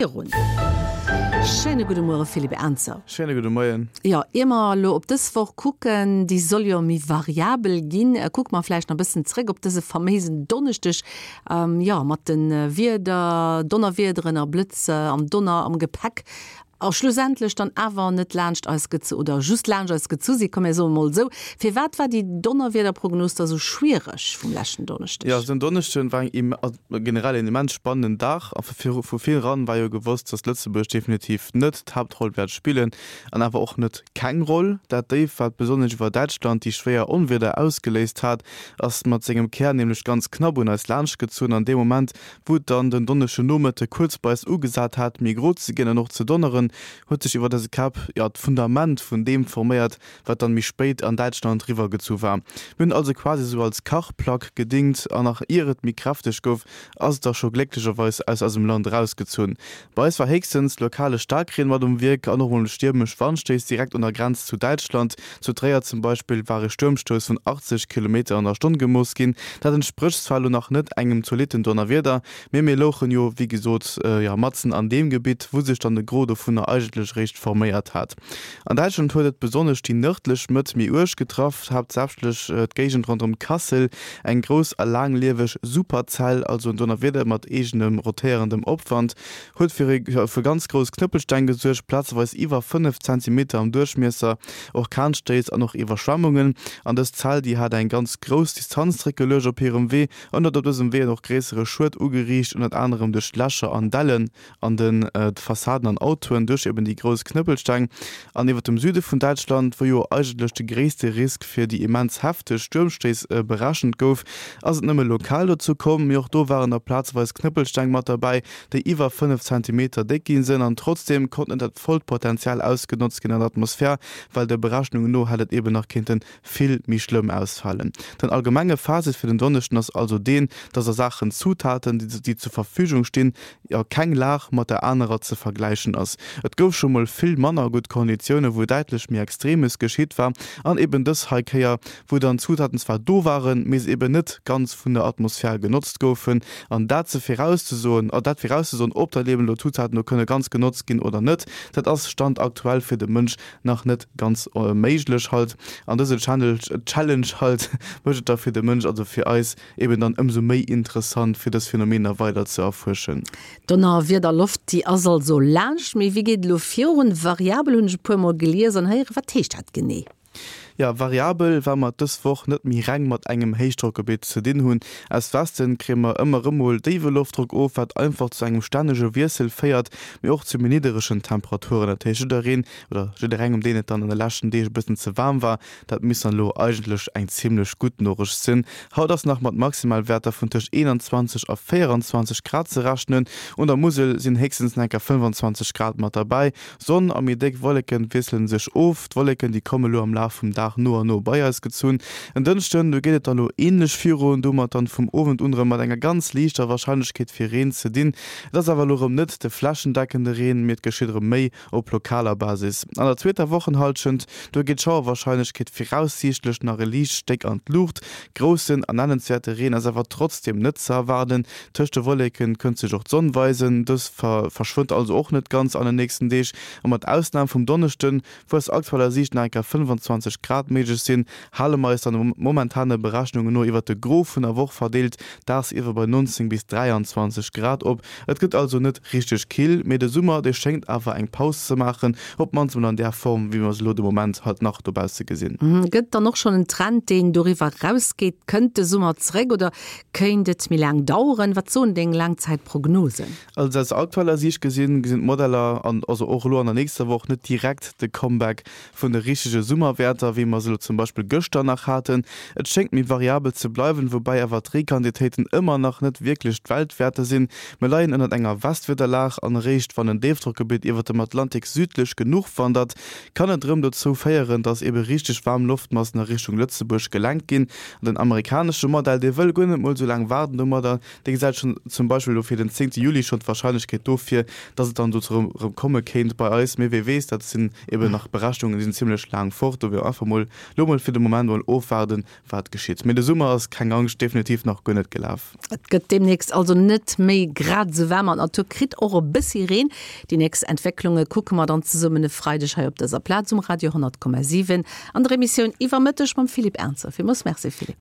Virun. Schéine gudde Muere Philippe Ernzer. Schéine gudde Moien. Jo, ier mer elo op dës Woch kucken, déi soll jo méi variabel ginn, kucke mer vläicht nach e bëssen zréck op dëse faméisen Donneschdeg, jo, mat de Wieder, Donnerwiederen a Blëtz an Donner am Gepäck a schlussendlech dann awer net laanscht eis gezu oder just laanscht eis gezu sinn, komm mir soe mol esou. Firwat war déi Donnerwiederprognos da sou schwiereg vum leschten Donneschdeg? Jo, den Donneschden war eng Generell een immens spannenden Dag a vu vir eran war jo gewosst, dass Lëtzebuerg definitiv net d'Haaptroll wäert spillen an awer och net keng Roll. Dat Déif, wat besonnesch iwwer Däitschland déi schwéier Onwieder ausgeléist hat, ass mat sengem Kär nämlech ganz knapp un eis laanschtgezunn an deem Moment, wou et dann den Donneschden Nomëtte kuerz bei eis ugesat hat, méi gro ze ginn an och ze donneren, huet sech iwwer eise Käpp, jo, d'Fundament vun deem forméiert, wat dann méi spéit an Däitschland riwwer gezu war. Mir hunn also quasi sou als Kachplack gedingt an nach ier et méi kräfteg gouf, ass et da scho glécklecherweis aus eisem Land erausgezunn. Bei eis war héchstens lokale Staarkreen mat um Wierk an och mol stiermesch Wandstéiss direkt un der Grenz zu Däitschland. Zu Tréier zum Beispill war e Stuermstouss vun 80 Kilometer an der Stonn gemooss ginn. Dat entsprécht zwar elo nach net engem zolitten Donnerwieder, mee mir louchen jo wéi gesot jo matzen an deem Gebitt, wou sech dann de Gros dovunner eigentlech eréischt forméiert hat. An Däitschland huet et besonnesch déi nërdlech Mëtt méi uerg getraff, haaptsächlech d'Géigend ronderëm Kassel. Eng grouss a laanglieweg Superzell, also en Donnerwieder mat eegenem rotéierendem Opwand, huet fir ganz grouss Knëppelsteng gesuergt, plazeweis iwwer 5 Zentimeter am Duerchmiesser, Orkanstéiss an och Iwwerschwemmungen. An dës Zell, déi hat eng ganz grouss Distanz zréckgeluecht op hirem Wee an huet op dësem Wee och gréissere Schued ugeriicht, ënnert anerem duerch Lächer an Dellen. an den Fassaden an Autoen duerch eben déi grouss Knëppelsteng. An iwwer dem Süde vun Däitschland, wou jo eigentlech de gréisste Risk fir déi immens hefteg Stuermstéiss berechent gouf, ass et nëmme lokal dozou komm. Mee och do waren da plazeweis Knëppelsteng mat derbäi, déi iwwer 5 Zentimeter déck gi sinn. An trotzdeem konnt net dat vollt Potenzial ausgenotzt ginn an der Atmosphär, well de Berechnungen no hätt et eben nach kéinte vill méi schlëmm ausfalen. Den allgemenge Fazit fir den Donneschden ass also deen, dass a Saachen Zutaten, déi zur Verfügung stinn, jo keng Lag mat der anerer ze vergläichen ass. Et gouf scho mol vill manner gutt Konditioune wou däitlech méi Extremes geschitt war an eben dës hei Kéier, wou dann d'Zutaten zwar do waren, mee se eben net ganz vun der Atmosphär genotzt goufen. An dat ze virauszesoen, dat virauszesoen, ob dann eben elo d'Zutaten do kënne ganz genotzt ginn oder net, dat ass Stand aktuell fir de Mënsch nach net ganz méiglech halt. An dëse Challenge halt mécht et da fir de Mënsch, also fir eis, eben dann ëmsou méi interessant, fir dës Phänomener weider ze erfuerschen. Donnerwiederloft, déi ass also laanscht. Mee wéi geet et elo virun? Variabel hunn ech e puer mol gelies an héieren. Wat heescht dat genee? Jo, variabel, well mer et dës Woch net méi reng mat engem Héichdrockgebitt ze dinn hunn. Aus Westen kréie mer ëmmer erëm mol déiwe Loftdrock of, wat einfach zu engem stännege Wiessel féiert, mee och zu méi nidderegen Temperaturen. Dat heescht, jiddereen oder jidderengem, deen et dann an de leschten Deeg e bëssen ze waarm war, dat misst dann elo eigentlech eng zimmlech gutt Norecht sinn. Haut ass nach mat Maximalwäerter vun tëscht 21 a 24 Grad ze rechnen. Un der Musel sinn héchstens nach enker 25 Grad mat derbäi. Sonn a méi déck Wolleke wiessele sech of. D'Wolleken, déi komme lo am Laf vum Dag no a no bei eis gezunn. En Dënschden, do geet et dann elo änlech virun, domat dann vum Owend un erëm mat enger ganz liichter Warscheinlechkeet fir Reen ze dinn. Et ass awer elo erëm net de flächendeckende Reen, mee et geschitt erëm méi op lokaler Basis. An der zweeter Wochenhallschent, do geet d'Schauerwarscheinlechkeet viraussiichtlech nach e liicht Stéck an d'Luucht. Groussen a nennenswäerte Reen ass awer trotzdeem net ze erwaarden. Tëscht de Wolleke kënnt sech och d'Sonn weisen, dës verschwënnt also och net ganz an de nächsten Deeg. A mat Ausnam vum Donneschden, wou aus aktueller Siicht nach eng Kéier 25 Grad méiglech sinn, hale mer eis dann momentane Berechnunge no iwwert de Gros vun der Woch verdeelt dagsiwwer bei 19 bis 23 Grad op. Et gëtt also net richteg kill, mee de Summer, dee schéngt awer eng Paus ze maachen, op d'mannst emol an där Form, wéi mer se elo de Moment halt nach dobausse gesinn. Gëtt et dann och schonn en Trend, deen doriwwer erausgeet? Kënnt de Summer zeréck oder kéint et méi laang daueren? Wat soen deng Laangzäitprognosen? Also aus aktueller Siicht gesinn, gesinn d'Modeller, an also och elo an der nächster Woch, net direkt de Comeback vun de richtege Summerwäerter, wéi mer se elo zum Beispill gëschter nach haten. Et schéngt méi variabel ze bleiwen, woubäi awer d'Reequantitéiten ëmmer nach net wierklech d'Weltwäerter sinn. Mir leien ënnert enger Westwiederlag an eréischt wann en Déifdrockgebitt iwwert dem Atlantik südlech genuch wandert, kann et erëm dozou féieren, dass ebe richteg waarm Loftmassen a Richtung Lëtzebuerg gelenkt ginn. An den amerikanesche Modell, dee wëll guer net mol esou laang waarden domadder, dee gesäit schonn zum Beispill elo fir den 10 Juli schonn d'Warscheinlechkeet do vir, dass et dann dozou erëm komme kéint bei eis. Mee wee weess, dat sinn eben nach Berechnungen, déi sinn zimmlech laang fort. Do wier einfach mol. mol lo mol fir de Moment mol ofwaarden, wat geschitt. Mee de Summer ass, keng Angscht, definitiv nach guer net gelaf. Et gëtt deemnächst also net méi grad esou waarm an d'Natur kritt och e bëssi Reen. Déi nächst Entwécklunge kucke mer dann zesummen e Freideg hei op dëser Plaz um Radio 100,7 an der Emissioun Iwwer Mëtteg mam Philippe Ernzer. Villmools Merci Philippe.